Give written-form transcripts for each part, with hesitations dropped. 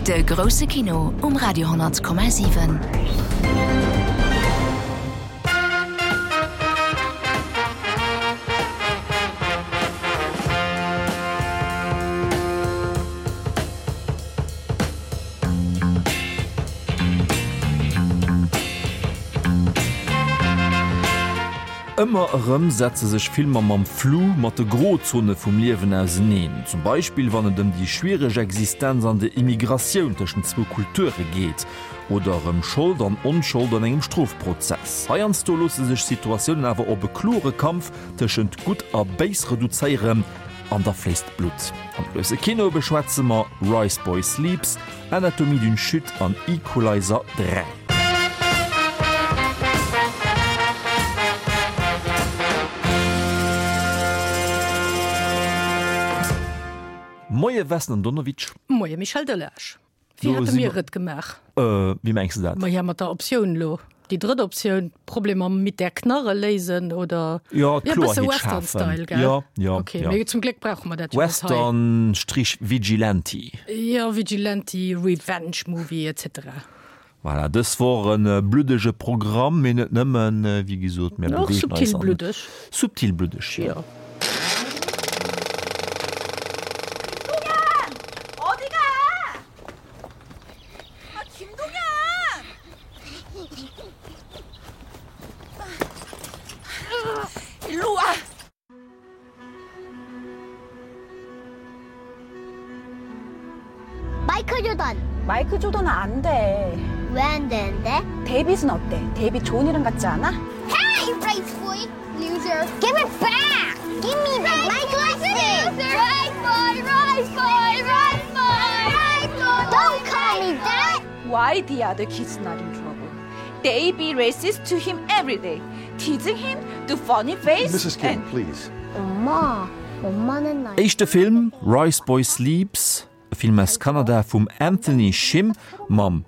De grousse Kino um Radio 10,7. Ëmmer erëm setze sech Filmer mam Flou, mat de Grozone vum Liewen auseneen. Zum Beispill wann et ëm déi schwiereg Existenz an der Immigratioun tëschent zwou Kulture geet. Oder ëm Schold an Onschold an engem Strofprozess. Heiansdo loosse sech Situatiounen awer op e klore Kampf tëschent Gutt a Béis reduzéieren. An da fléisst d'Blutt. Am grousse Kino beschwätze mer Rice Boy Sleeps, Anatomie d'une chute an Equalizer 3. Moie Vesna Donowitsch. Moie Michel Delage. Wéi hate mir et gemaach? Wéi mengs de dat? Maja, mat der Optioun elo. Déi drëtt Optioun, Problemer mit der Knarre léisen oder? Jo, Kloerheet schafen. Jo, jo. Okay, mee zum Gléck brauche mer dat jo net hei. Western Strich Vigilante. Jo, Vigilante, Revenge Movie, etc. Voilà, dës Woch e bluddege Programm, mee net nëmmen, wéi gesot, mir Och beweegen eis subtil an. bluddeg. Subtil bluddeg, jo. Jo. 마이클 조던. 마이클 조던은 안 돼. 왜 안 되는데? 데이빗은 어때? 데이빗 좋은 이름 같지 않아? Hey, rice boy, loser. Give it back. Give me back my glasses. Rice boy, rice boy, rice boy, rice boy. Don't call me that. Why the other kids not in trouble? They be racist to him every day, teasing him, do funny face. Mrs. Kim, please. 엄마, 엄마는 날. Éischte Film, Rice Boy Sleeps, e Film aus Kanada vum Anthony Shim mam,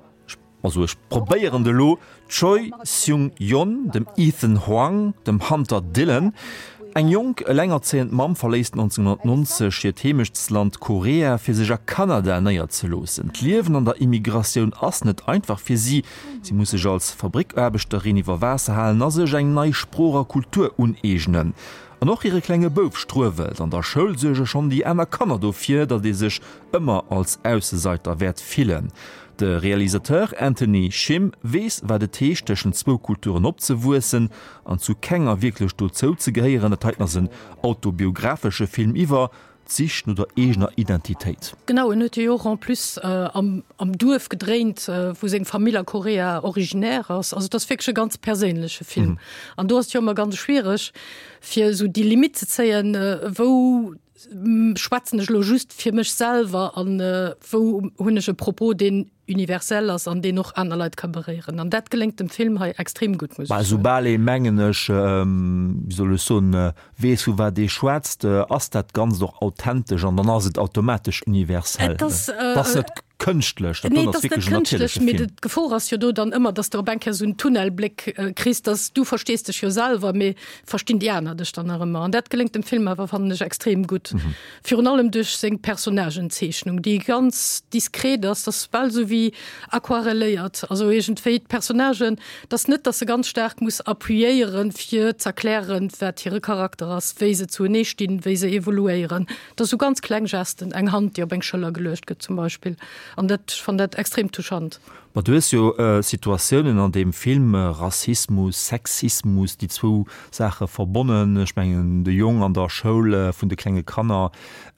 also ech probéieren et elo, Choi Seung-yeon, dem Ethan Hwang, dem Hunter Dillon. Eng jonk, elengerzéiend Mamm verléisst 1990 hiert Heemechtsland Korea, fir sech a Kanada néierzeloossen. D'Liewen an der Immigratioun ass net einfach fir si. Si muss sech als Fabrickaarbechterin iwwer Waasser halen a sech eng nei Sprooch a Kultur uneegnen. An och hire klenge Bouf struewelt. An der Schoul suerge schonn déi aner Kanner dofir, datt ee sech ëmmer als Ausseseiter wäert fillen. De Realisateur Anthony Shim weess, wat et heescht, tëschent zwou Kulturen opzewuessen an zu kenger wierklech dozou ze gehéieren. Dat heiten ass en autobiographesche Film iwwer d'Sich no der eegener Identitéit. Genau, en huet jo och en plus am am Duerf gedréint, wou seng Famill a Korea originaire ass. Also et ass wierklech e ganz perséinleche Film. An do ass et jo ëmmer ganz schwiereg, fir esou déi Limitt ze zéien, wou schwätzen ech elo just fir mech selwer an wou hunn ech e Propos, deen universell ass an deen och aner Leit ka beréieren. An dat geléngt dem Film hei extrem gutt, muss ech soen. Soubal ee, mengen ech, wéi soll ech soen, weess vu wat ee schwätzt, ass dat Ganzt och authentesch an dann ass et automatesch universell. Et ass Et ass net kënschtlech, dat do ass wierklech en natierleche Film. Mee d'Gefor ass jo do dann ëmmer, dass de op eng Kéier esou en Tunnelbléck kriss, dass du verstees dech jo selwer, mee verstinn déi aner dech dann nach ëmmer? An dat geléngt dem Film awer, fannen ech, extrem gutt. Virun allem duerch seng Personnagenzeechnung, déi ganz diskret ass, dat ass bal esou wéi aquarelléiert, also iergendwéi d'Personnagen, et ass net, dass se ganz staark muss appuyéieren, fir z'erklären, wat hire Charakter ass, wéi se zuenee stinn, wéi se evoluéieren. Et ass esou ganz kleng Gesten, eng Hand, déi op eng Schëller geluecht gëtt zum Beispill, an dat, ech fannen dat extrem touchant. Ma du hues jo Situatiounen an deem Film, Rassismus, Sexismus, déi zwou Saache verbonnen. Ech mengen de Jong an der Schoul vun de klenge Kanner,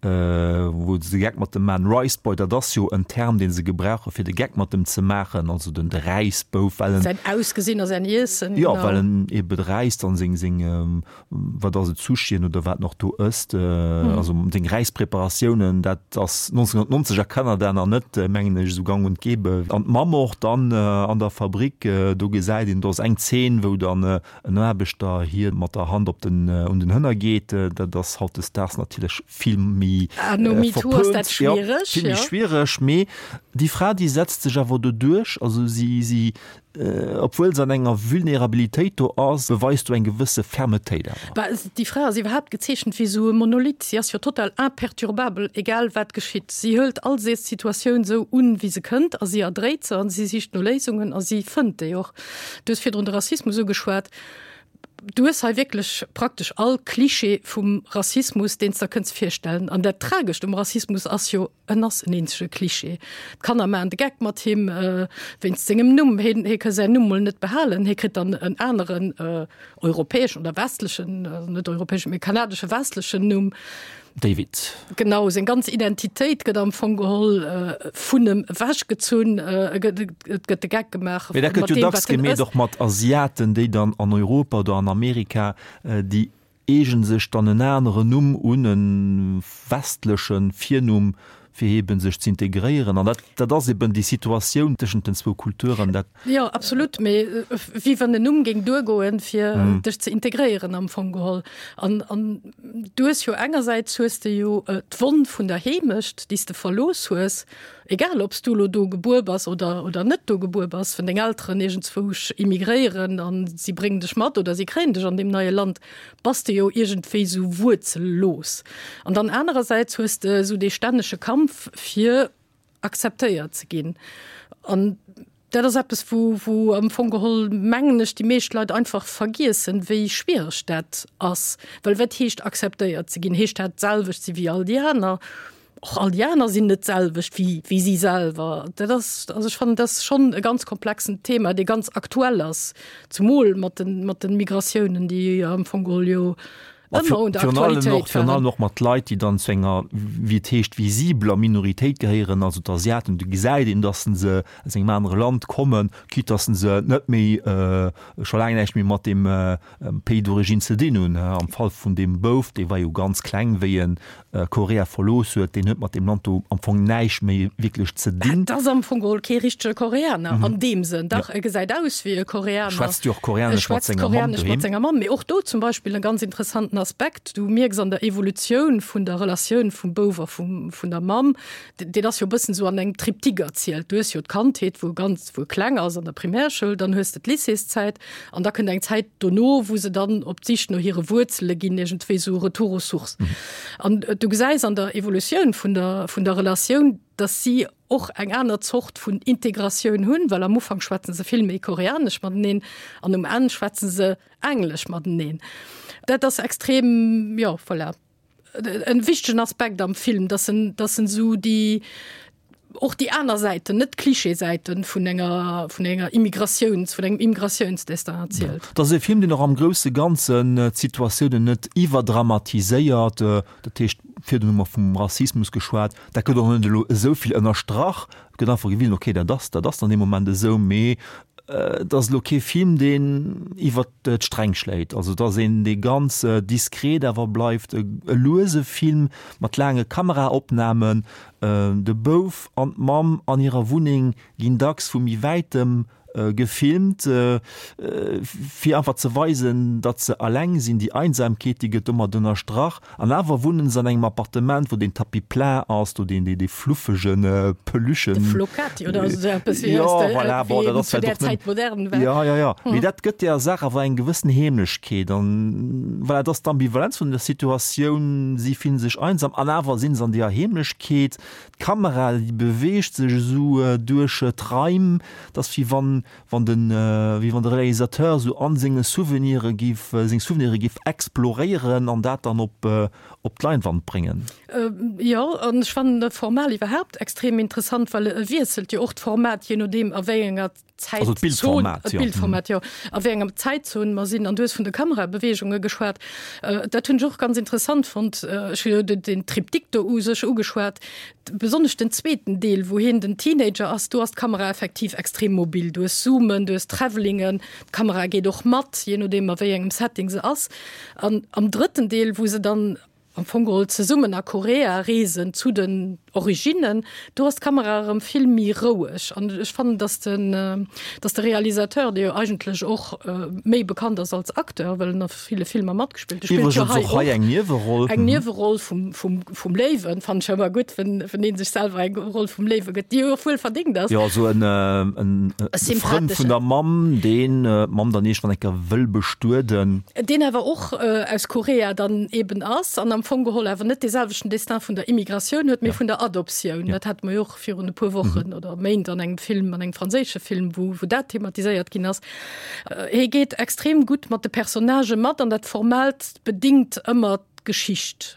wou se de Geck mat dem maachen, Rice Boy, dat ass jo en Term, dee se gebrauche fir de Geck mat em ze maachen, also den de Räisbouf, well en. Säin Ausgesinn a säin Iessen, genau. Jo, well en ebe räisst an seng, seng, wat ass et, Sushien oder wat en och do ësst, also seng Räispreparatiounen, dat ass 1990 a Kanada nach net, mengen ech, esou gang und gäbe. An d'Mamm och dann an der Fabrik, do gesäit een, do ass eng Zeen, wou dann en Aarbechter hir mat der Hand op den, un den Hënner geet, dat ass hautdesdaags natierlech vill méi verpönt, jo, vill méi schwiereg, mee. Déi Fra, déi setzt sech awer do duerch, also si, si, obwuel se an enger Vulnerabilitéit do ass, beweist do eng gewësse Fermetéit awer. Bah, déi Fra ass iwwerhaapt gezeechent wéi esou e Monolith. Si ass jo total imperturbabel, egal wat geschitt. Si hëlt all Situatioun esou un, wéi se kënnt a si erdréit se a si sicht no Léisungen a si fënnt déi och. Du hues virdrun de Rassismus ugeschwat. Du hues hei wierklech praktesch all Klischee vum Rassismus, deen s der kënns virstellen. An dat Tragescht um Rassismus ass jo, en ass en eenzege Klischee. D'Kanner maachen de Geck mat him wéinst sengem Numm. Hien, hie ka säin Numm mol net behalen. Hie kritt dann en aneren europäeschen oder westlechen, also net europäeschen, mee kanadesche westlechen Numm. David. Genau, seng ganz Identitéit gëtt am Fong geholl vun em ewechgezunn. Et gëtt de Geck gemaach Mee dat gëtt jo dacks gemeet och mat Asiaten, déi dann an Europa oder an Amerika, déi eegen sech dann en aneren Numm un, e westleche Virnumm, fir eben sech z'integréieren. An dat, dat ass eben déi Situatioun tëschent den zwou Kulturen, dat. Jo, absolut, mee wéi wann en Numm géing duergoen, fir dech ze integréieren am Fong geholl. An, an du hues jo engersäits hues de jo d'Wonn vun der Heemecht, déi s de verlooss hues, egal ob s du elo do gebuer bass oder, oder net do gebuer bass, wann deng Elteren iergendzwousch immigréieren an si bréngen dech mat oder si kréien dech an deem neie Land, bass de jo iergendwéi sou wuerzellos. An dann anerersäits hues de esou dee stännege Kampf fir akzeptéiert ze ginn. An dat ass eppes, wou, wou am Fong geholl, mengen ech, déi meescht Leit einfach vergiessen, wéi schwiereg dat ass. Well wat heescht akzeptéiert ze ginn? Heescht dat d'selwecht si wéi all déi aner? Och all déi aner sinn net d'selwecht wéi, wéi si selwer. Dat ass, also ech fannen, dat ass schonn e ganz komplexen Thema, dee ganz aktuell ass, zumol mat den, mat den Migratiounen, déi am Fong geholl jo ëmmer un der Aktualitéit Virun allem och mat Leit, déi dann zu enger, wéi et heescht, visibeler Minoritéit gehéieren, also d'Asiaten. Do gesäit een, datt se aus engem anere Land kommen, quitte datt se net méi, scho laang näischt méi mat deem Pays d'origine ze dinn hunn. Am Fall vun deem Bouf, dee war jo ganz kleng, wéi en Korea verlooss huet, deen huet mat deem Land do am Fong näischt méi wierklech ze dinn. Et ass am Fong geholl kee richtege Koreaner an deem Sënn. Dach, e gesäit aus wéi e Koreaner. Schwätzt jo och Koreanesch mat senger Mamm doheem. Schwätzt Koreanesch mat senger Mamm. Mee och do zum Beispill e ganz interessanten Aspekt, Du mierks an der Evolutioun vun der Relatioun vum Bouf a vum, vun der Mamm, deen ass jo e bëssen esou an engem Triptyque erzielt. Du hues jo d'Kandheet, wou e ganz, wou e kleng ass an der Primärschoul, dann hues de d'Lycéeszäit an da kënnt eng Zäit dono, wou se dann op d'Sich no hire Wuerzele ginn, iergendwéi esou Retour aux sources. An du gesäis an der Evolutioun vun der, vun der Relatioun, dass si och eng aner Zort vun Integratioun hunn, well am Ufank schwätze se vill méi Koreanesch mateneen an um Enn schwätze se Englesch mateneen. Dat ass extrem, jo, voilà. En wichtegen Aspekt am Film, dass en, dass en esou déi, och déi aner Säiten, net d'Klischeesäiten vun enger, vun enger Immigratiouns, vun engem Immigratiounsdestin erzielt. Et ass e Film, deen och am grousse Ganzen d'Situatiounen net iwwerdramatiséiert. Dat heescht, virdrun hu mer vum Rassismus geschwat, dat gëtt och net elo esou vill ënnerstrach. Et gëtt einfach gewisen, okay, dat ass, dat ass an deem Moment esou, mee et ass elo kee Film, deen iwwert d'Sträng schléit. Also et ass een, dee ganz diskret awer bleift, e luese Film mat laange Kameraopnamen. De Bouf an d'Mamm an hirer Wunneng ginn dacks vu méi wäitem gefilmt, fir einfach ze weisen, datt se alleng sinn. Déi Einsamkeet, déi gëtt domat ënnerstrach. An awer wunnen se an engem Appartement, wou den Tapis plat ass, do deen, dee fluffege Peluchen. De Flocati oder esou eppes, wéi Jo, voilà, bon, dat ass zu där Zäit modern war. Jo, jo, jo. Mee dat gëtt der Saach awer eng gewëssen Heemlechkeet. An voilà, et ass d'Ambivalenz vun der Situatioun, si fillen sech einsam an awer sinn se an deeër Heemlechkeet. D'Kamera, déi beweegt sech esou duerch d'Raim, et ass wéi wann, wann den, wéi wann de Réalisateur esou an senge Souvenire giff, seng Souvenire giff exploréieren an dat dann op, op d'Leinwand bréngen. Jo, an ech fannen de Format iwwerhaapt extrem interessant, well e wiesselt jo och d'Format, je nodeem a wéi enger Also Zäitzon, d'Bildformat, jo. D'Bildformat, jo, a wéi enger Zäitzon mer sinn. An du hues vun de Kamerabeweegunge geschwat. Dat hunn ech och ganz interessant fonnt. Ech hu jo den Triptyque do u sech ugeschwat. Besonnesch den zweeten Deel, wou hien den Teenager ass, do ass d'Kamera effektiv extrem mobil. Du hues Zoomen, du hues Travelingen, d'Kamera geet och mat, jee nodeem a wéi engem Setting se ass. An am drëtten Deel, wou se dann am Fong geholl zesummen a Korea reesen zu den. Originnen, do ass d'Kamera erëm vill méi roueg an ech fannen, dass den, dass de Realisateur, dee jo eigentlech och méi bekannt ass als Acteur, well en a ville Filmer matgespillt huet, spillt jo hei och eng Nieweroll, eng Nieweroll vum, vum, vum Léiwen, fannen ech ëmmer gutt, wenn, wenn ee sech selwer eng Roll vum Léiwe gëtt, déi jo och wuel verdéngt ass. Jo, esou en, en Frënd vun der Mamm, deen d'Mamm dann iergendwann eng Kéier wëll bestueden. Deen awer och aus Korea dann eben ass an am Fong geholl awer net dee selwechten Destin vun der Immigratioun huet, mee vun der Adoptioun. Dat hate mer jo och virun e puer Wochen oder Méint an engem Film, an engem franséische Film, wou, wou dat thematiséiert ginn ass. Hie geet extrem gutt mat de Personnagë mat an dat Formellt bedingt ëmmer d'Geschicht.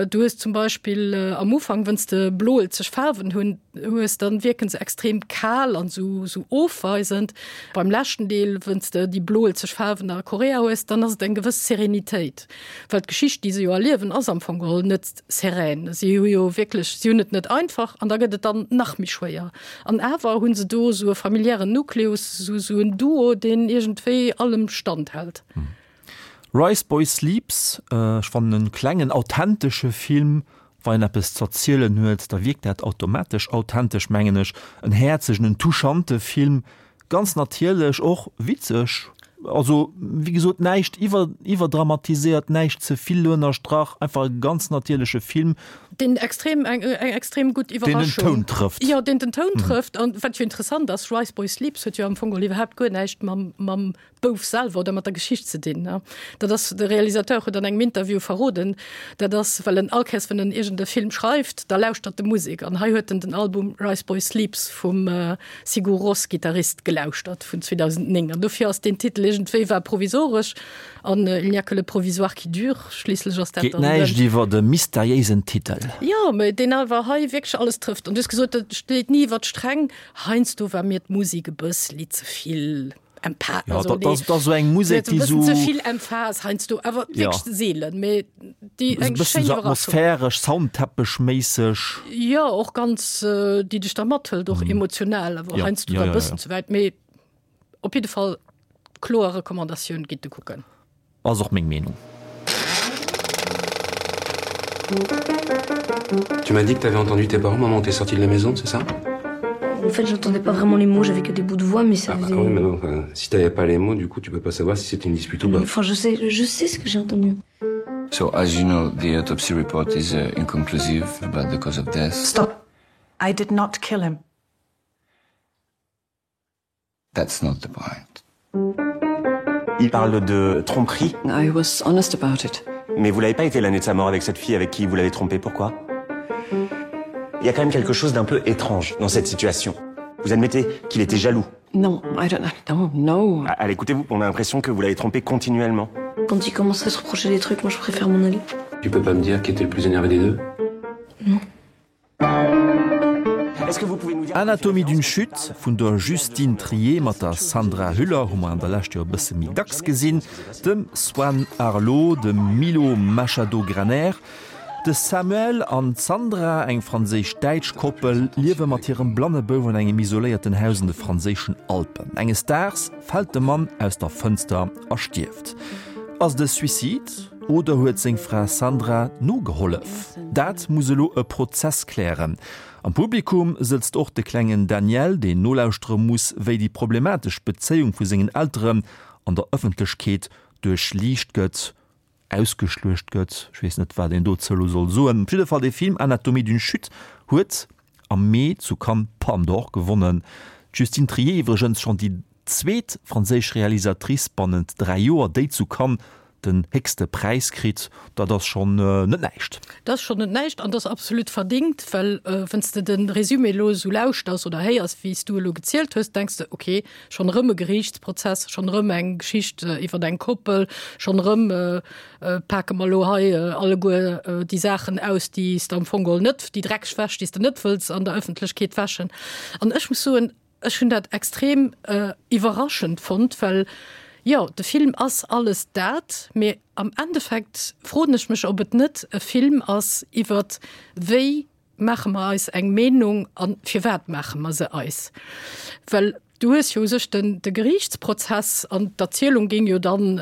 Du hues zum Beispill am Ufank, wënns de bloelzeg Faarwen hunn, hues, dann wierken se extrem kal an sou sou ofweisend. Beim leschten Deel, wënns de déi bloelzeg Faarwen a Korea hues, dann ass et eng gewëss Serenitéit, well d'Geschicht, déi se jo erliewen, ass am Fong geholl net serän. Si hu jo wierklech, si hunn et net einfach an da gëtt et dann nach méi schwéier. An awer hu se do sou e familiären Nukleus, sou sou en Duo, deen iergendwéi allem standhält. Rice Boy Sleeps, ech fannen en klengen authentesche Film, wa een eppes z'erzielen huet, da wierkt dat automatesch authentesch mengen ech. En häerzegen, en touchante Film, ganz natierlech, och witzeg, also wéi gesot näischt iwwer iwwerdramatiséiert, näischt ze vill ënnerstrach, einfach e ganz natierleche Film. Deen extrem eng eng extrem gutt Iwwerraschung. Deen den Toun trëfft. Jo, deen den Toun trëfft an wat jo interessant ass, Rice Boy Sleeps huet jo am Fong geholl iwwerhaapt guer näischt mam mam Bouf selwer oder mat der Geschicht ze dinn. Dat ass, de Realisateur huet an engem Interview verroden, dat ass, well en all Kéiers, wann en iergend e Film schreift, da lauschtert e Musek. An hei huet en den Album Rice Boy Sleeps vum Sigur Rós Gittarist gelauschtert vun 2009. An dofir ass deen Titel iergendwéi war provisoresch an il n'y a que le provisoire qui dure, schliisslech ass dat Geet dann näischt den. iwwer e mysteriéisen Titel. Jo, mä deen awer hei wierklech alles trëfft. An du hues gesot, dat schléit ni iwwer d'Sträng. Heiansdo war mir d'Musek e bëssli ze vill. Empa ja, also, dat, dat so eng Musek déi so zevill Emphas heinsst du awer ja. seelen méi déi eng bëssen so atmosphäresch Soundteppechméisseg ja och ganz äh, déi dech da mathëlt och mm. emotional awer ja. heinsst du ja, ja, bëssen ja. ze wäit méi op jidde Fall kloer Recommandatioun gitt de kucken. Ass och meng Meenung. Tu m'as dit que tu avais entendu tes parents moment où t'es sorti de la maison, c'est ça En fait, j'entendais pas vraiment les mots, j'avais que des bouts de voix, mais ça ah, faisait... Ah oui, mais non, enfin, si t'avais pas les mots, du coup, tu peux pas savoir si c'était une dispute ou pas. Enfin, je sais, je sais ce que j'ai entendu. So, as you know, the autopsy report is uh, inconclusive about the cause of death. Stop. I did not kill him. That's not the point. Il parle de tromperie. I was honest about it. Mais vous l'avez pas été l'année de sa mort avec cette fille avec qui vous l'avez trompé, pourquoi Il y a quand même quelque chose d'un peu étrange dans cette situation. Vous admettez qu'il était jaloux. Non, I don't, I don't know. Ah, allez, écoutez-vous, on a l'impression que vous l'avez trompé continuellement. Quand il commence à se reprocher des trucs, moi je préfère m'en aller. Tu peux pas me dire qui était le plus énervé des deux Non. Anatomie d'une chute vun der Justine Triet mat der Sandra Hüller hu mer an der Lescht jo e bësse méi dacks gesinn, dem Swann Arlaud, dem Milo Machado-Graner. De Samuel an d'Sandra, eng franséisch-däitsch Koppel, liewe mat hirem blanne Bouf an engem isoléierten Haus an de franséischen Alpen. Enges Daags fält de Mann aus der Fënster a stierft. Ass et e Suicide? Oder huet seng Fra Sandra nogehollef? Dat muss elo e Prozess klären. Am Publikum sëtzt och de klengen Daniel, deen nolauschtere muss, wéi déi problematesch Bezéiung vu sengen Elteren an der Ëffentlechkeet duerchliicht gëtt, ausgeschluecht gëtt. Ech weess net, wat een dozou elo soll soen. Op jidde Fall, dee Film Anatomie d'une chute huet am Mee zu Cannes d'Palme d'Or gewonnen. D'Justine Triet iwwregens schonn déi zweet franséisch Realisatrice bannent 3 Joer, déi zu Cannes den héchste Präis kritt. Dat ass schonn net näischt. Dat ass schonn net näischt an dat ass absolut verdingt, well wann s de de Résumé elo esou lauschters oder héiers, wéi s du elo gezielt hues, denks de, ok, schonn erëm e Geriichtsprozess, schonn erëm eng Geschicht iwwer eng Koppel, schonn erëm pake mer elo hei alleguer déi Saachen aus, déi s de am Fong geholl net, déi dreckeg Wäsch, déi s de net wëlls an der Ëffentlechkeet wäschen. An ech muss soen, Ech hunn dat extrem iwwerraschend fonnt, well jo, de Film ass alles dat, mee am Endeffekt froen ech mech, ob et net e Film ass iwwert wéi maache mer eis eng Meenung a firwat maache mer se eis. Well du hues jo u sech den de Geriichtsprozess an d'Erzielung géing jo dann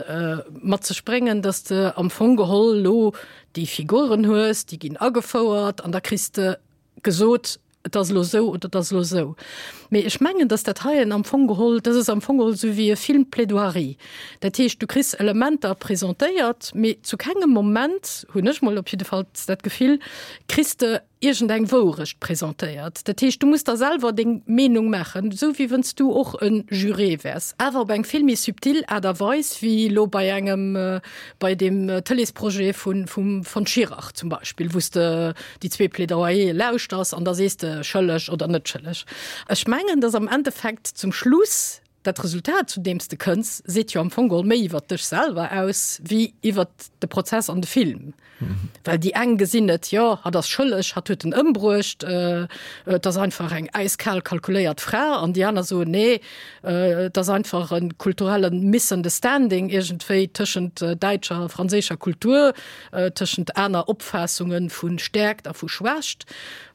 mat sech bréngen, datt de am Fong geholl elo déi Figuren hues, déi ginn agefouert an da kriss de. gesot, et ass elo esou oder et ass elo esou. Mee ech mengen, datt dat heien am Fong geholl, dat ass am Fong geholl esou wéi e Film-Plaidoirie. Dat heescht, du kriss Elementer presentéiert, mee zu kengem Moment, hunn ech mol op jiddefalls dat Gefill, kriss de iergendeng Wourecht presentéiert. Dat heescht, du muss der selwer deng Meenung maachen, esou wéi wënns du och e Juré wäers, awer op eng vill méi subtil Aart a Weis wéi elo bei engem, bei deem Tëleesprojet vun, vum von Schirach zum Beispill, wou s de déi zwee Plaidoyere lauschters an da sees de schëlleg oder net schëlleg. Ech mengen, dass am Endeffekt zum Schluss dat Resultat, zu deem s de kënns, seet jo am Fong geholl méi iwwert dech selwer aus wéi iwwert de Prozess an de Film. Well déi eng gesinn et, jo, hatt ass schëlleg, hatt huet en ëmbruecht, et ass einfach eng äiskal kalkuléiert Fra, an déi aner soen, nee, et ass einfach e kulturelle Misunderstanding iergendwéi tëschent däitscher a franséischer Kultur. tëschent aner Opfaassunge vu Stäerkt a vu Schwächt.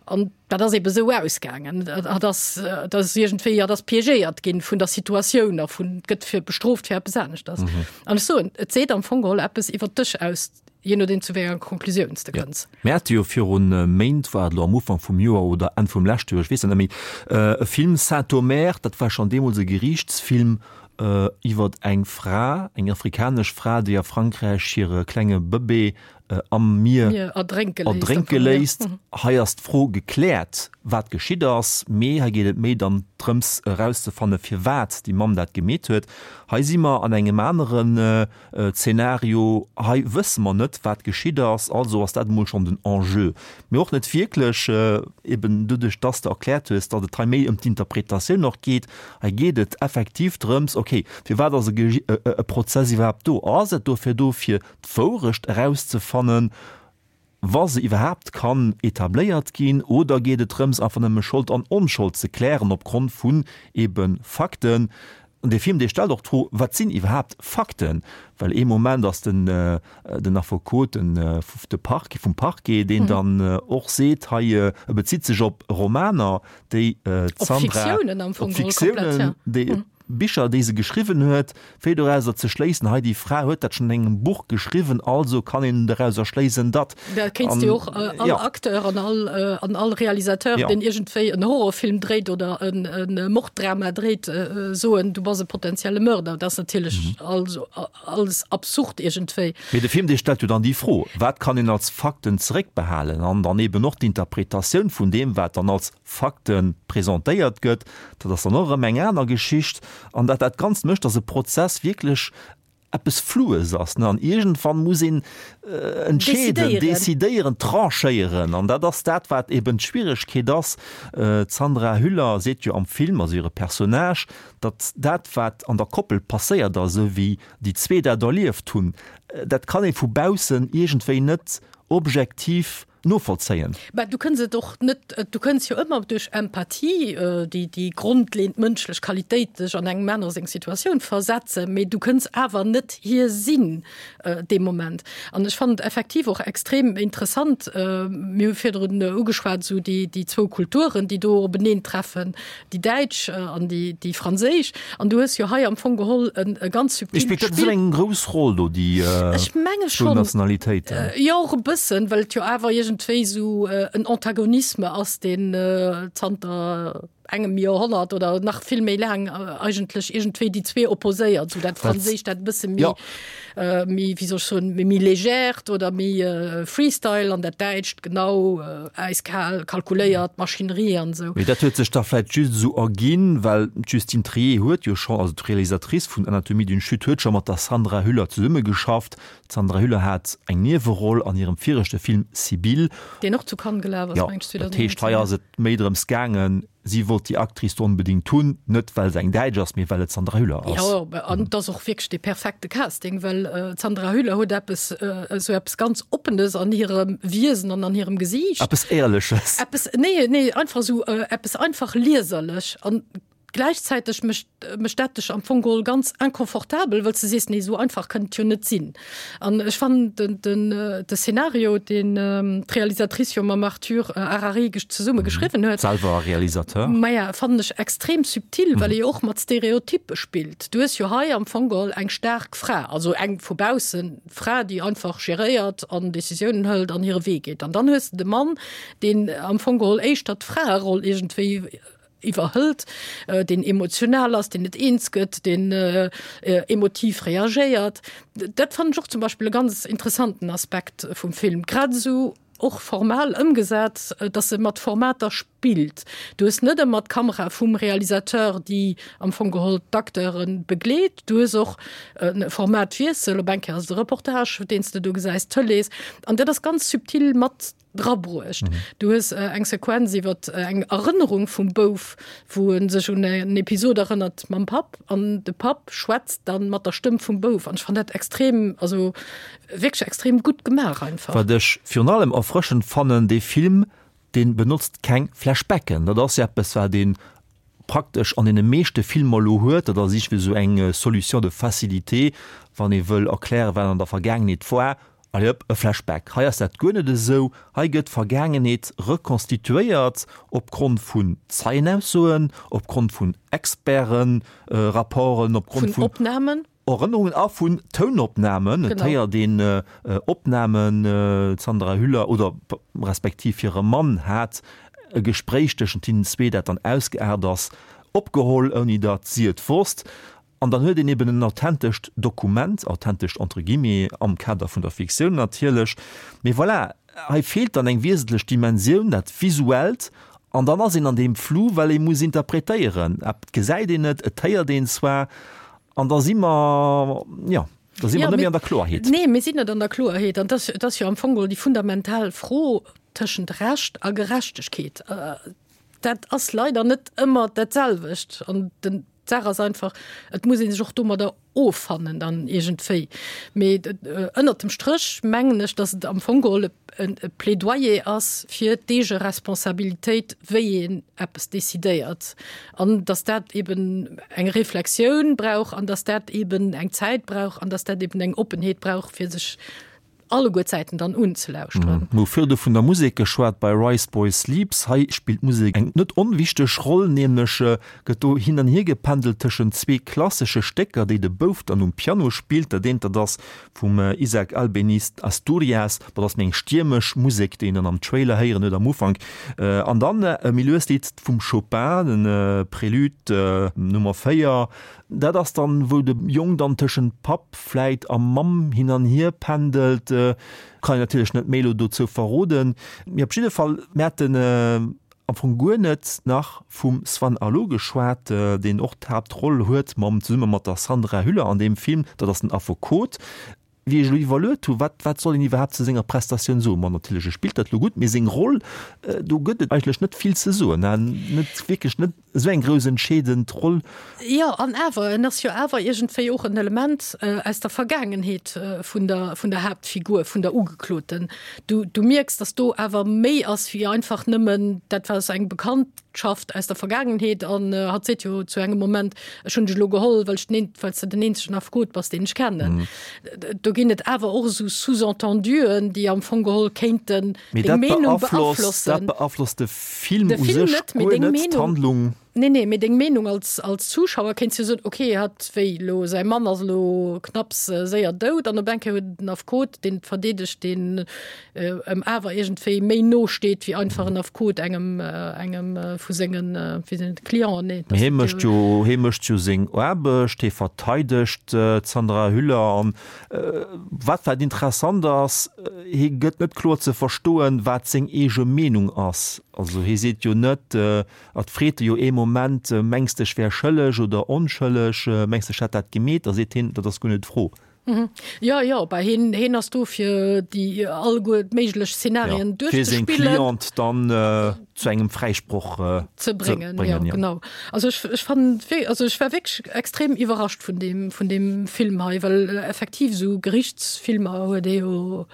An dat ass ebe sou ausgaangen. Dat ass, dat ass iergendwéi, dat ass piégéiert ginn vun der Situatioun a vun gëtt fir bestrooft fir eppes aneschters. Mhm. An ech soen, et seet am Fong geholl eppes iwwer dech aus, je nodeem zu wéi enger Konklusioun s de Ja. kënns. Mir hate jo virun Méint, war et elo am Ufank vum Joer oder Enn vum leschte Joer, ech weess et net méi, e Film Saint-Omer, dat war schonn deemools e Geriichtsfilm, Iwwer eng Fra, eng afrikanesch Fra, déi a Frankräich hire klenge Bëbee am Mier erdrénke léisst. Hei ass d'Fro gekläert, wat geschitt ass, mee hei geet et méi dann drëms erauszefanne firwat déi Mamm dat gemeet huet. Hei si mer an engem aneren Zeenario, hei wësse mer net, wat geschitt ass, also ass dat emol schonn den Enjeu. Mee och net wierklech, eben doduerch, dass de erkläert hues, datt et hei méi ëm d'Interpretatioun och geet. Hei geet et effektiv drëms, okay, firwat ass e Prozess iwwerhaapt do? Ass et dofir do, fir d'Wourecht erauszefannen, wa se iwwerhaapt kann etabléiert ginn, oder geet et drëms, einfach nëmme Schold an Onschold ze klären opgrond vun ebe Fakten? An dee Film, dee stellt och d'Fro, Wat sinn iwwerhaapt Fakten? Well ee Moment ass den den Affekot, den de Parquet, vum Parquet, deen dann och seet, hei, e bezitt sech op Romaner, déi d'Sandra, op Fiktiounen, déi Bicher, déi se geschriwwen huet, fir dorauser ze schléissen, hei déi Fra huet dat schonn an engem Buch geschriwwen, also kann een dorauser schléissen, datt. Da kéints de jo och all Acteur an all, an all Realisateur, deen iergendwéi en Horrorfilm dréit oder e Morddrama dréit, soen, du bass e potentielle Mörder. Dat ass natierlech also alles absurd iergendwéi. Mee de Film, dee stellt jo dann déi Fro, wat kann een als Fakten zeréckbehalen? An dann eben och d'Interpretatioun vun deem, wat dann als Fakte presentéiert gëtt, dat ass dann och erëm eng aner Geschicht. An dat dat Ganzt mécht, datt e Prozess wierklech eppes Floues ass, ne? An iergendwann muss een entscheeden, decidéieren, tranchéieren. An dat ass dat, wat eben d'Schwieregkeet ass. D'Sandra Hüller seet jo am Film, also hire Personnage, datt dat, wat an der Koppel passéiert ass, esou wéi déi zwee dat erlieft hunn, dat kann ee vu baussen iergendwéi net objektiv novollzéien. Mä du kënns et och net, du kënns jo ëmmer duerch Empathie, déi déi grondleeënd mënschlech Qualitéit, dech an engem anere seng Situatioun versetzen, mee du kënns awer net hie sinn dee Moment. An ech fannen et effektiv och extrem interessant, mir hu virdrun ugeschwat, esou déi déi zwou Kulturen, déi do openeen treffen, déi däitsch an déi déi franséisch. An du hues jo hei am Fong geholl en e ganz subtilt Spillt dat esou eng grouss Roll do, déi Ech menge zwou schonn. Nationalitéiten? Jo, och e bëssen, well et jo awer iergendwéi esou en Antagonisme ass, deen zanter engem Joerhonnert oder nach vill méi laang eigentlech iergendwéi déi zwee opposéiert, esou dat Franséischt, dat e bësse méi méi, wéi soll ech soen, méi légèrt oder méi Freestyle an dat Däitscht genau äiskal, kalkuléiert, Maschinerie an esou. Mee dat huet sech da vläit just esou erginn, well d'Justine Triet huet jo scho, also d'Realisatrice vun Anatomie d'une chute huet scho mat der Sandra Hüller zesummegeschafft. D'Sandra Hüller hat eng Nieweroll an hirem viregte Film Sibylle. Deen och zu Cannes gelaf ass, Jo, meng ech, dat heescht, hei 2019. ass et méi drëms gaangen, Si wollt déi Actrice do onbedéngt hunn, net well se eng Däitsch ass, mee well et d'Sandra Hüller ass. Jo, an et ass och wierklech dee perfekte Casting, well d'Sandra Hüller huet eppes, esou eppes ganz Oppenes an hirem Wiesen an an hirem Gesiicht. Eppes Éierleches. Eppes, nee, nee, einfach esou eppes einfach lieserlech an. Gläichzäiteg mécht mécht dat dech am Fong geholl ganz inconfortabel, wëll s de sees, nee, esou einfach kënnt et jo net sinn. An ech fannen den, den, de Szenario, deen d'Realisatrice jo mam Arthur Harari zesumme geschriwwen huet, Selwer Realisateur. Maja, fannen ech extrem subtil, well e jo och mat Stereotyppe spillt. Du hues jo hei am Fong geholl eng staark Fra, also eng vu baussen Fra, déi einfach geréiert an Decisiounen hëlt an hire Wee geet. An dann hues de de Mann, deen am Fong geholl éischter d'Fraeroll iergendwéi iwwerhëlt, deen emotional ass, deen net eens gëtt, deen emotiv reagéiert. Dat fannen ech och zum Beispill e ganz interessanten Aspekt vum Film, grad esou och formal ëmgesat, datt e mat Formater spillt. Du hues net ëmmer d'Kamera vum Realisateur, déi am Fong geholl d'Acteure begleet. Du hues och e Formatwiessel, op eng Kéier ass et e Reportage, deen s de do gesäis, Tëlees. An dat ass ganz subtil mat drabruecht. Du hues eng Sequenz iwwer eng Erënnerung vum Bouf, wou e sech un en Episod erënnert mam Papp an de Papp schwätzt dann mat der Stëmm vum Bouf an ech fann dat extrem, also wierklech extrem gutt gemaach einfach. Wat ech virun allem erfrëschend fannen, dee Film, dee benotzt keng Flashbacken. Dat ass jo eppes, wat een praktesch an deene meeschte Filmer elo huet, dat ass iergendwéi esou eng Solution de facilité, wann ee wëll erklären, wat an der Vergaangenheet war, allez hop, e Flashback. Hei ass dat guer net esou. Hei gëtt d'Vergaangenheet rekonstituéiert opgrond vun Zeienaussoen, opgrond vun Experten-Rapporten, opgrond vun Opnamen. Erënnerungen a vun Tounopnamen. Et héiert een Opnamen, d'Sandra Hüller oder respektiv hire Mann hat e Gespréich tëschent hinnen zwee, dat dann ausgeaart ass, opgeholl, ouni datt si et wosst. An dann huet een eben en authentescht Dokument, authentescht entre guillemets, am Kader vun der Fiktioun natierlech. Mee voilà, hei feelt dann eng wiesentlech Dimensioun, dat Visuellt. An dann ass een an deem Flou, well ee muss interpretéieren. Et gesäit een et, et héiert een zwar, An da si mer, jo, da si mer net méi an der Kloerheet. Nee, mir sinn net an der Kloerheet. An dat ass jo am Fong geholl déi fundamental Fro tëschent Recht a Gerechtegkeet. Dat ass leider net ëmmer dat selwecht. An den, d'Saach ass einfach, et muss ee sech och domadder offannen dann iergendwéi. Mee ënnert dem Stréch mengen ech, datt et am Fong geholl e Plädoyer ass fir d'Eegeresponsabilitéit, wéi een eppes decidéiert an dass dat eben eng Reflexioun brauch an dass dat eben eng Zäit brauch an dass dat eben eng Oppenheet brauch, fir sech alleguer d'Säiten dann unzelauschteren. Mir hu virdu vun der Musek geschwat bei Rice Boy Sleeps. Hei spillt d'Musek eng net onwichteg Roll, nämlech gëtt do hin an hier gependelt tëschent zwee klassesche Stécker, déi de Bouf dann um Piano spillt. Dat eent, dat ass Vum Isaac Albéniz Asturias, dat ass méi eng stiermesch Musek, déi een dann am Trailer héieren huet am Ufank. An dann e méi luest Lidd vum Chopin, den Prélude Nummer 4. Dat ass dann, wou de Jong dann tëschent Papp vläit a Mamm hin an hier pendelt. Kann een natierlech net méi elo dozou verroden. Mee op jidde Fall, mir haten Am Fong guer net nach vum Swann Arlaud geschwat, deen och d'Haaptroll huet mam zesumme mat der Sandra Hüller an deem Film. Dat ass den Affekot. Wéi ech elo iwwerluet hu, wat wat soll een iwwerhaapt zu senger Prestatioun soen? Ma natierlech, e spillt dat elo gutt, mee seng Roll, do gëtt et eigentlech net vill ze soen, net wierklech net esou eng grouss entscheedend Roll. Jo, an awer, en ass jo awer iergendwéi och en Element aus der Vergaangenheet vun der vun der Haaptfigur, vun der Ugekloten. Du, du mierks, dass do awer méi ass wéi einfach nëmmen, dat war eng Bekanntschaft aus der Vergaangenheet an hatt seet jo zu engem Moment, ech hunn dech elo geholl, well ech den, well s de den eenzegen Affekot bass, deen ech kennen. Do ginn et awer och esou Sous-entenduen, déi am Fong geholl kéinten deng Meenung beaflossen. Dat beaflosst de Film u sech guer net, d'Handlung. Nee, nee, mee deng Meenung als, als Zuschauer kéints jo soen, okay, hatt, wéi elo, säi Mann ass elo knapps séier dout an op eng Kéier huet en Affekot, deen et verdeedegt, deen em awer iergendwéi méi no steet wéi einfach en Affekot engem, engem vu sengen, wéi sinn et, Clienten, nee. Mee hie mécht jo, hie mécht jo seng Aarbecht, hie verteidegt d'Sandra Hüller an wat wat interessant ass, hie gëtt net kloer ze verstoen, wat seng eege Meenung ass. Also hie seet jo net, Et freet e jo ee Moment, Mengs de ech wär schëlleg oder onschëlleg? Mengs de ech hätt dat gemeet? Da seet hien, Dat ass guer net d'Fro. Jo, jo, bah hien, hien ass do fir déi alleguer méiglech Szenarien duerchzespillen. Fir seng Cliente dann zu engem Fräisproch ze bréngen. Jo, genau. Also ech, ech fannen, also ech war wierklech extrem iwwerrascht vun deem, vun deem Film hei, well effektiv esou Gerichtsfilmer huet ee jo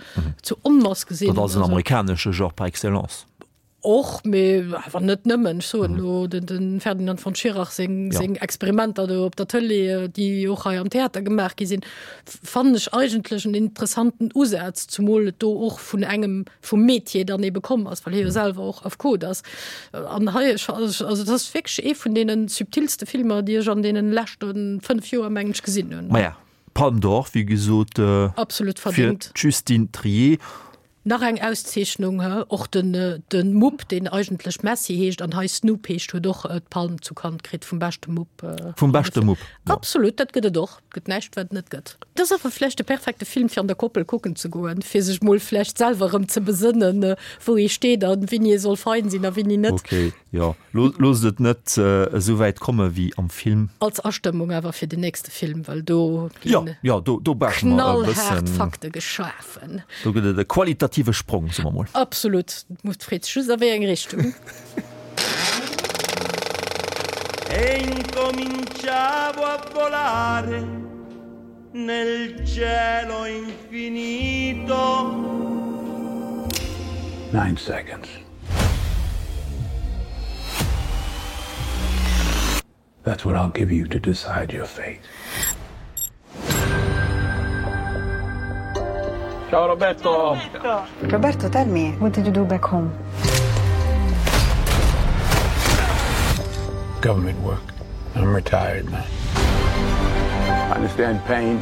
zu Onmass gesinn. Dat ass en amerikanesche Genre par excellence. Och, mee awer net nëmmen. Ech soen elo den, den Ferdinand von Schirach seng, ja. seng Experimenter do op der Tëlee, déi och hei am Theater gemaach gi sinn, fannen ech eigentlech en interessanten Usaz, zumol et do och vun engem vum Metier dann ebe komm ass, well hie jo selwer och Affekot ass. An hei, ech, also dat ass wierklech ee vun deene subtilste Filmer, déi ech an deene leschte 5 Joer, mengen ech, gesinn hunn. Maja, Palme d'Or, wéi gesot, Absolut verdéngt. fir d'Justine Triet. Nach eng Auszeechnung, he? Och den den Mupp, deen eigentlech Messi heescht an hei Snoop heescht, huet och d'Palm zu Cannes kritt vum beschte Mupp. Vum beschte Mupp, jo. Absolut, dat gëtt et och. Et gëtt näischt, wat et net gëtt. Et ass awer vläicht de perfekte Film, fir an der Koppel kucken ze goen, fir sech mol vläicht selwer erëm ze besënnen, wou ee steet an wéini ee soll fein sinn a wéini net. Ok, jo. Loosst et net esou wäit komme wéi am Film. Als Astëmmung awer fir den nächste Film, well do ginn knallhaart Fakte geschafen. Do gëtt et e qualitative Sprong, soe mer mol. Absolut. Et freet sech just a wéi eng Richtung. E incominciavo a volare nel cielo infinito. Nine seconds. That's what I'll give you to decide your fate. Ciao Roberto. Roberto, tell me, what did you do back home? Government work. I'm retired now. I understand pain,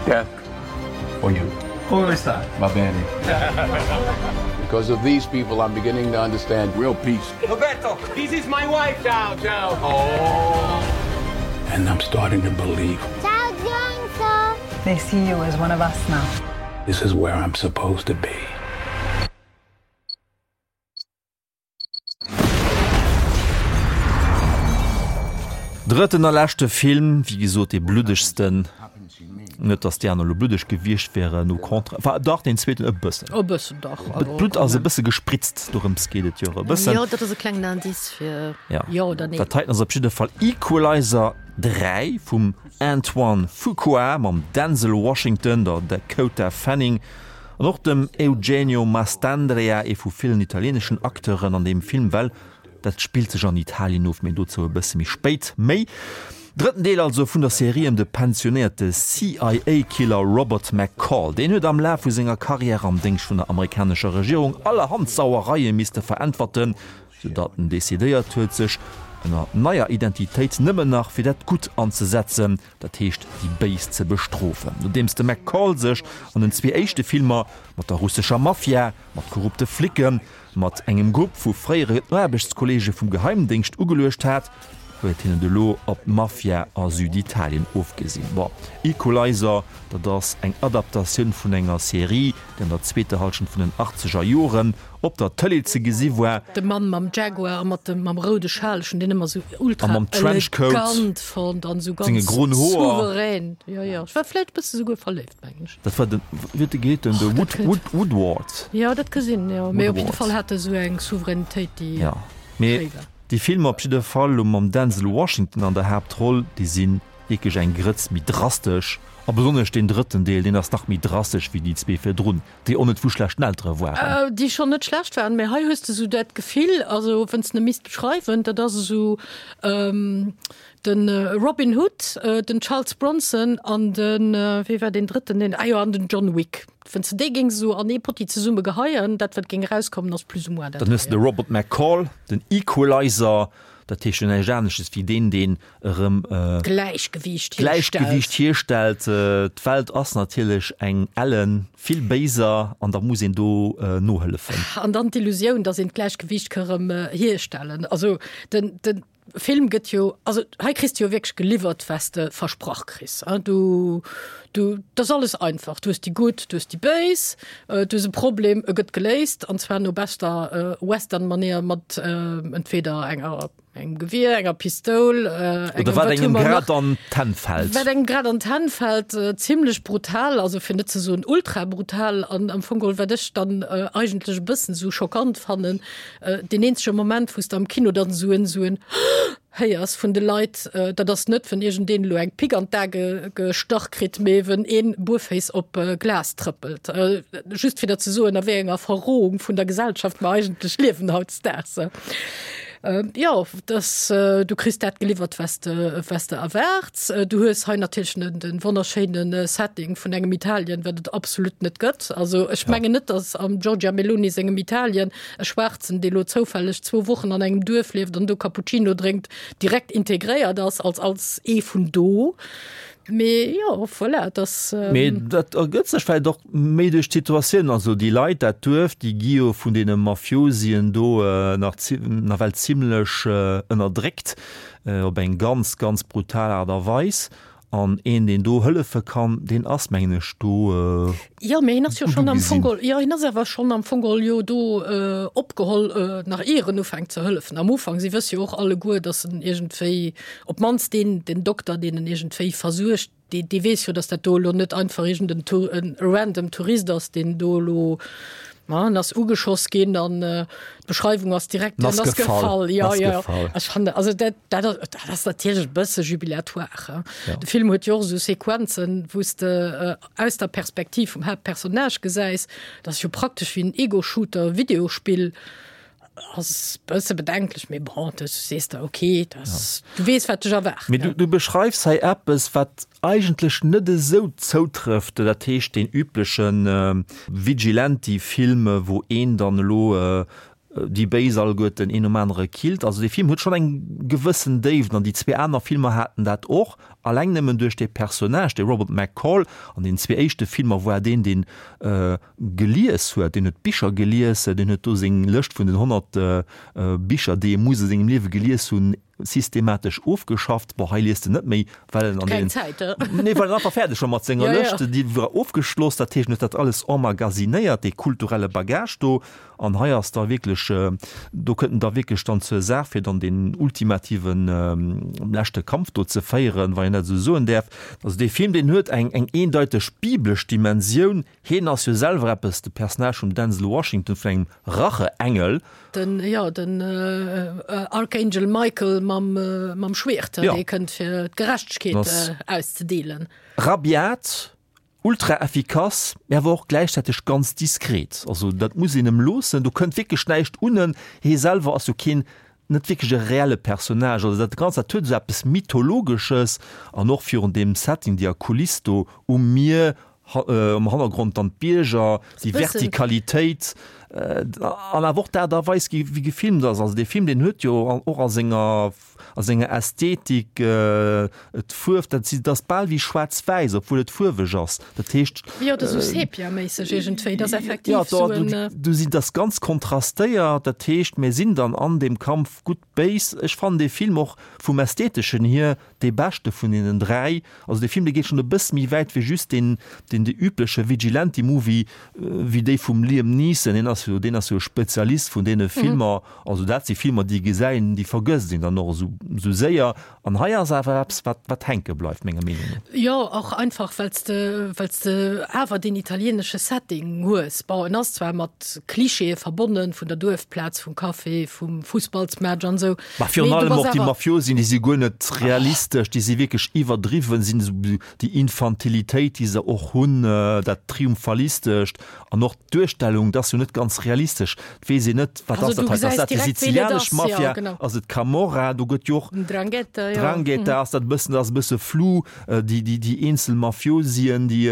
death for you. Come sta? Va bene. Because of these people, I'm beginning to understand real peace. Roberto, this is my wife. Ciao, ciao. Oh. And I'm starting to believe. Ciao, Johnson. They see you as one of us now. This is where I'm supposed to be. Drëtten a leschte Film, wéi gesot dee bluddegsten. Net datt déi aner elo bluddeg gewiescht wären, au contraire, enfin dach deen zweeten e bëssen. E bëssen dach. D'Blutt ass e bësse gespritzt, dorëms geet et jo e bëssen. Jo, dat ass e klengen Indice fir jo oder nee. Dat heiten ass op jidde Fall Equalizer 3 vum Antoine Fuqua mam Denzel Washington, der Dakota Fanning An och dem Eugenio Mastandrea, ee vu villen italieeneschen Acteuren an deem Film, well dat spillt sech an Italien of, mee dozou e bësse méi spéit méi. Drëtten Deel also vun der Serie ëm de pensionéierte CIA-Killer Robert McCall. Deen huet am Laf vu senger Karriär am Déngscht vun der amerikanescher Regierung allerhand Sauereie misste veräntwerten, sou datt en decidéiert huet, sech ënner neier Identitéit nëmmen nach fir dat Gutt anzesetzen. dat heescht déi Béis ze bestrofen. Nodeems de McCall sech an den zwee éischte Filmer mat der russescher Mafia, mat korrupte Flicken, mat engem Grupp vu fréiere Aarbechtskolleege vum Geheimdéngscht ugeluecht hat, huet hien et elo op d'Mafia a Süditalien ofgesinn. Bon, Equalizer, dat ass eng Adaptatioun vun enger Serie, déi an der zweeter Hallschent vun den achtzeger Joren op der Tëlee ze gesi war. De Mann mam Jaguar a mat dem mam roude Schal, ech hunn deen ëmmer sou ultra A mam Trenchcoat, elegant fonnt an sou senge ganz groen Hoer. souverän. Jo, jo, ech war vläicht e bësse souguer verléift, mengen ech. Dat war den, wéi huet de geheet, den de Wood, Wood, Woodward. Jo, dat ka sinn, jo. Mee op jidde Fall hat e sou eng Souveränitéit, déi Ja, mee schéi war. déi Filmer op jidde Fall, lo mam Denzel Washington an der Haaptroll, déi si wierklech eng Grëtz méi drastesch. A besonnesch deen drëtten Deel, deen ass nach méi drastesch wéi déi zwee virdrun. Déi och net vu schlechten Eltere waren. Déi schonn net schlecht waren, mä hei hues de esou dat Gefill, also wann s de e misst beschreiwen, dat ass esou de Robin Hood, den Charles Bronson an de, wee war deen drëtten, deen, ah jo, an den John Wick. Wann s de déi géings esou an ee Potti zesumme geheien, dat wat géing erauskommen, ass plus ou moins dat Dann hues de de heien. Robert McCall, den Equalizer, dat heescht jo näischt anesches wéi deen, deen erëm Gläichgewiicht Gläichgewiicht hierstellt. D'Welt ass natierlech eng ellen vill béiser an da muss een do nohëllefen. An dann d'Illusioun, datt een d'Gläichgewiicht ka rëm hierstellen. Also den, den Film gëtt jo, also hei kriss de jo wierklech geliwwert, wat s de versprach kriss. Du, du, dat ass alles einfach. Du hues déi Gutt, du hues déi Béis, du hues e Problem, e gëtt geléist, an zwar no beschter Western-Manéier mat entweder enger engem Gewier, enger Pistoul, äh, engem, Oder wat engem grad an d'Hänn fällt. Wat engem grad an d'Hänn fällt, äh, zimmlech brutal, also fir net ze soen ultra brutal an am Fong geholl, wat ech dann äh, eigentlech e bëssen sou schockant fannen, äh, deen eenzege Moment, wou s de am Kino dann sou en sou en. Héiers vun de Leit, dat ass net, wenn iergendeen elo eng Pick an d'A gestach kritt, mee wenn een buerféiss op Glas trëppelt. Just fir der ze soen, a wéi enger Verrohung vun der Gesellschaft mer eigentlech liewen hautdesdaags. Jo, dass du kriss dat geliwwert, was de, was de erwaarts. Du hues hei natierlech den, den wonnerschéine Setting vun engem Italien, wat et absolut net gëtt. Also ech mengen net, dass am Giorgia Meloni sengem Italien E Schwaarzen, dee lo zoufälleg zwou Wochen an engem Duerf lieft an do Cappuccino drénkt, direkt integréiert ass als als ee vun do. Mee jo, voilà, et ass. Mee dat ergëtt sech vläicht och méi duerch d'Situatioun. Also déi Leit, dat Duerf, déi gi jo vun deene Mafiosien do nach nawell zimlech ënnerdréckt, op eng ganz, ganz brutal Aart a Weis. An een, deen do hëllefe kann, deen ass, mengen ech, do Jo, mee hien ass jo schonn am Fong geholl, jo, hien ass awer schonn am Fong geholl jo do opgeholl, nach ier en ufänkt ze hëllefen. Am Ufank, si wësse jo och alleguer, datt en iergendwéi, op d'mannst deen, den Dokter, deen en iergendwéi versuergt, dee, dee weess jo, datt dat do elo net einfach iergend en Tour, en random Tourist ass, deen do elo, ma en ass ugeschoss ginn an d'Beschreiwung ass direkt, en ass gefall. Jo, jo, ech fannen, also dat, Dat ass, dat ass natierlech e bësse jubilatoire. Hein? Ja. De Film huet jo och esou Sequenzen, wou s de äh, aus der Perspektiv vum Haaptpersonnage gesäis. Dat ass jo praktesch wéi en Ego-Shooter-Videospill. Ass bësse bedenklech, mee bon, du sees der, okay, das, ja. du weess, wat dech erwaart. Mee du, du beschreifs hei eppes, wat eigentlech net esou zoutrëfft, dat heescht deen üblechen äh, Vigilante-Film, wou een dann elo äh, déi Béis alleguerten een nom anere killt. Also dee Film huet schonn eng gewëssen Déift an déi zwee aner Filmer haten dat och, alleng nëmmen duerch dee Personnage, dee Robert McCall. An den zwee éischte Filmer war deen, deen gelies huet, deen huet Bicher gelies, deen huet do seng Lëscht vun den 100 Bicher, déi e muss a sengem Liewe gelies hunn, systematesch ofgeschafft. Bon, hei liest en net méi, well en an den, Zäit, nee, well en einfach fäerdeg war mat senger ja, Lëscht. Ja. Déi war ofgeschloss, dat heescht, en huet dat alles emmagasinéiert, dee kulturelle Bagage do. An hei ass da wierklech, do kënnt en da wierklech dann zur Saach, fir dann deen ultimativen leschte Kampf do ze féieren, wann een dat esou soen däerf. Also dee Film, deen huet eng, eng eendeiteg biblesch Dimensioun. Hien ass jo selwer eppes, de Personnage vum Denzel Washington, vun engem Racheengel. Den, jo, den Archangel Michael mam, mam Schwiert, dee kënnt fir d'Gerechtegkeet auszedeelen. Rabiat, ultra effikass, mä awer och gläichzäiteg ganz diskret. Also dat muss een em loossen, do kënnt wierklech näischt un en. Hie selwer ass jo keen, net wierklech e reelle Personnage. Also dat Ganzt, dat huet esou eppes Mythologesches an och virun deem Setting, déi Kuliss do um Mier, Am Hannergrond dann d'Bierger, déi Vertikalitéit an awer och d'Aart a Weis, wéi gefilmt ass. Also dee Film, deen huet jo och a senger, a senger Ästhetik, d'Fuerf, dat si, dat ass bal wéi schwaarz-wäiss, obwuel et fuerweg ass. Dat heescht. Jo, dat ass esou Sepia-méisseg iergendwéi. Dat ass effektiv esou en. Jo, do sinn, dat ass ganz kontrastéiert. Dat heescht, mir sinn dann an deem Kampf gutt-béis. Ech fannen dee Film och vum Ästheteschen hier Dee beschte vun deenen 3. Also dee Film dee geet schonn e bësse méi wäit wéi just deen deen dee übleche Vigilante Movie wéi déi vum Liam Neeson. Deen ass jo deen ass jo e Spezialist vun deene Filmer. Also dat si Filmer déi gesäit déi vergësst een dann och esou esou séier. An hei ass awer eppes wat wat hänke bleift menger Meenung no. Jo, och einfach well s de well s de awer deen italienesche Setting hues. Bon, en ass zwar mat Klischeeë verbonnen, vun der Duerfplaz, vum Café, vum Fussballsmatch an esou. Ma virun allem och déi Mafiosien, déi si guer net realistesch, déi si wierklech iwwerdriwwen, sinn esou déi Infantilitéit, déi se och hunn, dat Triumphalistescht an och d'Duerstellung, dat ass jo net ganz realistesch. Et weess een net, wat ass dat hei? Ass dat déi sizilianesch Mafia? Ass et d'Camorra? Do gëtt jo och. Ndrangheta, jo. Ndrangheta ass dat e bëssen, dat ass e bësse flou. Déi, déi, déi eenzel Mafiosien, déi.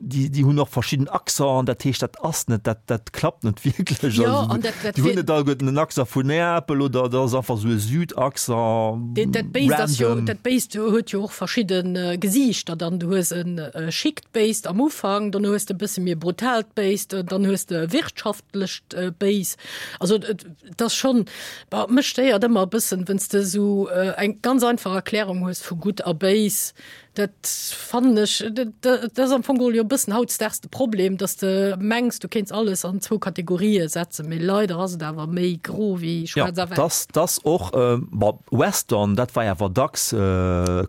Déi, déi hunn och verschidden Accenten, dat heescht, dat ass net, dat, dat klappt net wierklech. Jo, an dat, dat Déi hunn net alleguerten en Accent vun Neapel oder dat ass einfach esou e Südaccent, Dat, dat Béist ass jo, dat Béist huet jo och verschidde Gesiichter dann. Du hues e schickt Béist am Ufank, dann hues de e bësse méi e brutaalt Béist, dann hues de e wirtschaftlecht Béis. Also et, et ass schonn, bon, mech stéiert ëmmer e bëssen, wenn's de esou eng ganz einfach Erklärung hues vu gutt a béis, Dat fannen ech, dat ass am Fong geholl jo e bëssen hautdesdaags de Problem, dass de mengs, du kéints alles an zwou Kategorië setzen, mee leider ass et awer méi gro wéi schwaarz a wäiss. Jo, dass dass och, bon, Western, dat war awer dacks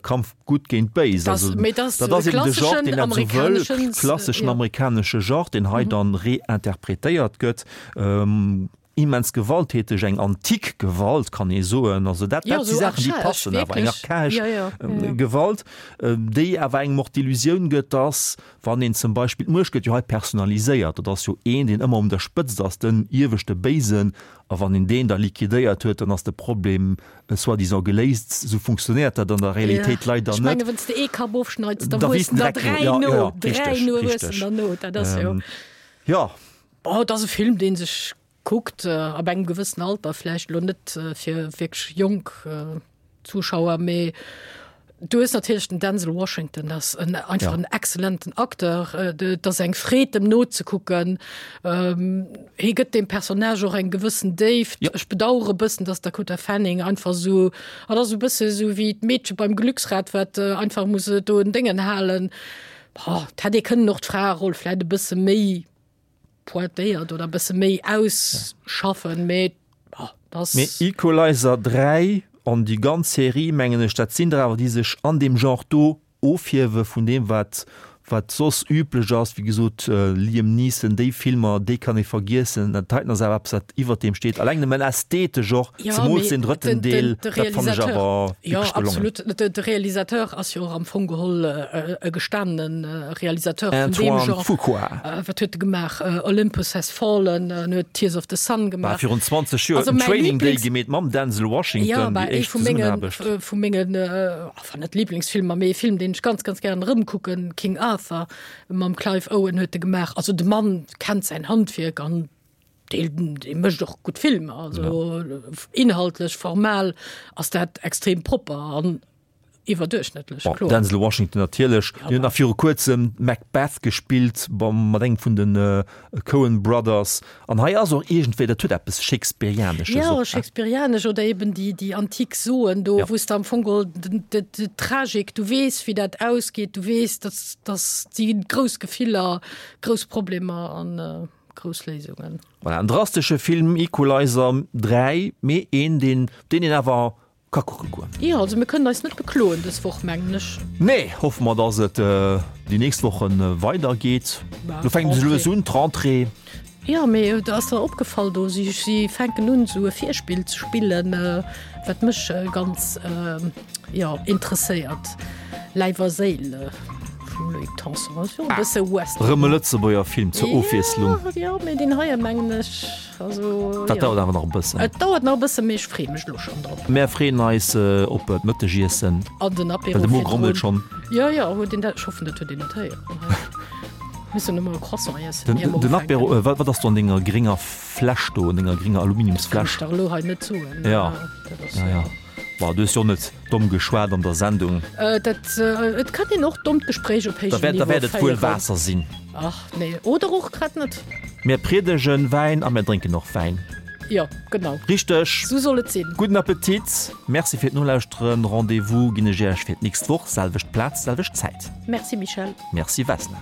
Kampf gutt géint béis. Also dat ass eben de Genre, deen dat esou wëll, klasseschen amerikanesche Genre, deen hei dann reinterpretéiert gëtt. immens gewalttäteg, eng antik Gewalt kann ee soen. Also dat, dat si Saachen, déi passen awer, eng archaesch Gewalt, déi awer engem och d'Illusioun gëtt, dass wann een zum Beispill, d'Muecht gëtt jo hei personaliséiert, dat ass jo een, deen ëmmer un der Spëtzt ass, den ieweschte Béisen, a wann een deen da liquidéiert huet, dann ass de Problem soi-disant geléist. Esou funktionéiert dat an der Realitéit leider net. Ech menge wann s de ee Kapp ofschneits, da wuessen der dräi no, dräi no wuessen der no, dat ass jo. Jo. Oh, et ass e Film, dee sech kuckt, ab engem gewëssen Alter, vläicht elo net fir wierklech jonk Zuschauer, mee du hues natierlech den Denzel Washington, dat ass en einfach en exzellenten Acteur, et ass eng Freed em nozekucken. Hie gëtt deem Personnage och eng gewëssen Déift. Ech bedauere e bëssen, datt d'Dakota Fanning einfach esou, et ass e bësse esou wéi d'Meedche beim Glücksrad, wat einfach muss do en Déngen halen. Boah, et hätt ee kënnen och d'Fraeroll vläit e bësse méi pointéiert oder e bësse méi ausschaffen, mee boah, dat. Mee Equalizer 3 an déi ganz Serie, mengen ech, dat sinn der awer, déi sech an deem Genre do ofhiewe vun deem, wat wat soss üblech ass. Wéi gesot, Liam Neeson, déi Filmer, déi kann ee vergiessen. Dat heiten ass awer eppes, wat iwwert deem steet, alleng nëmmen ästhetesch och. Ja, Zemools mee den drëtten den, Deel, den, de dat fannen ech Realisateur, awer ja, wierklech gelongen. absolut. De, de Realisateur ass jo och am Fong geholl äh, e gestanenen äh, Realisateur vun deem Antoine Genre. Fuqua. Äh, wat huet e gemaach? Äh, Olympus Has Fallen, en huet Tears of the Sun War gemaach. virun 20 Joer Also en mäi Training Day Lieblings- gemeet mam Denzel Ja, Washington, bah, déi ee éischt vu mengen, Zesummenaarbecht. äh, vu mengen, äh, enfin net Lieblingsfilmer, mee e Film, deen ech ganz, ganz gären erëmkucken, King Arthur mam Clive Owen huet e gemaach. Also de Mann kennt säin Handwierk an Dee, dee mécht och gutt Filmer, also inhaltlech, formal ass dat extrem propper an iwwerduerchschnëttlech, Bon, kloer. Denzel Washington natierlech, deen huet nach viru kuerzem Macbeth gespillt beim, mat engem vun de Coen Brothers. An hei ass och iergendwéi, dat huet eppes Shakespearianesches Jo, och, ne? Shakespearianesch oder eben déi, déi antik Soen do, Ja. wou s de am Fong geholl den, de, d'Tragik, du weess, wéi dat ausgeet, du weess, dass, dass si grouss Gefiller, grouss Problemer an. Grouss Léisungen. Voilà, en drastesche Film, Equalizer 3, mee een, deen, deen een awer ka kucke goen. Jo, also mir kënnen eis net bekloen dës Woch, mengen ech. Nee, hoffe mer, dass et déi nächst Woche weider geet. Lo fänkt se lues un, d'Rentrée. Jo, mee ass der opgefall do, si, si fänken un esou e Virspill ze spillen, wat mech ganz, jo, interesséiert. Läif a Séil vum Loïc Tanson, ass jo e bësse Western. Rëm e Lëtzebuerger Film zur Ofwiesslung. Jo, mee deen heie mengen ech, also. Dat dauert awer nach e bëssen. Et dauert nach e bëssen, mee ech freeë mech elo schonn drop. Mär freeën eis op d'Mëttegiessen. An den Apéro Well de Mo virdrun. grommelt schonn. Jo, jo, huet een dat, ech hoffen, dat huet een net héieren. Missen emol e Croissant iessen, Den ier mer den ufänken. Apéro, wat ass do an denger grénger Fläsch do, an denger grénger Aluminiumsfläsch? Dat kann ech der elo hei net soen. Jo, Dat ass. jo, jo. Bon, du hues jo och net domm geschwat an der Sendung. Dat, et kann een och dommt Gespréich op héijem Da Niveau wäert et wuel féieren. Waasser sinn. Ach nee, oder och grad net. Mir priedegen Wäin a mir drénken och Wäin. Jo, genau. Richteg. Sou soll et sinn. Gudden Appetit. Merci fir d'Nolauschteren. Rendez-vous ginn ech Iech fir d'nächst Woch, selwecht Plaz, selwecht Zäit. Merci Michèle. Merci Vesna.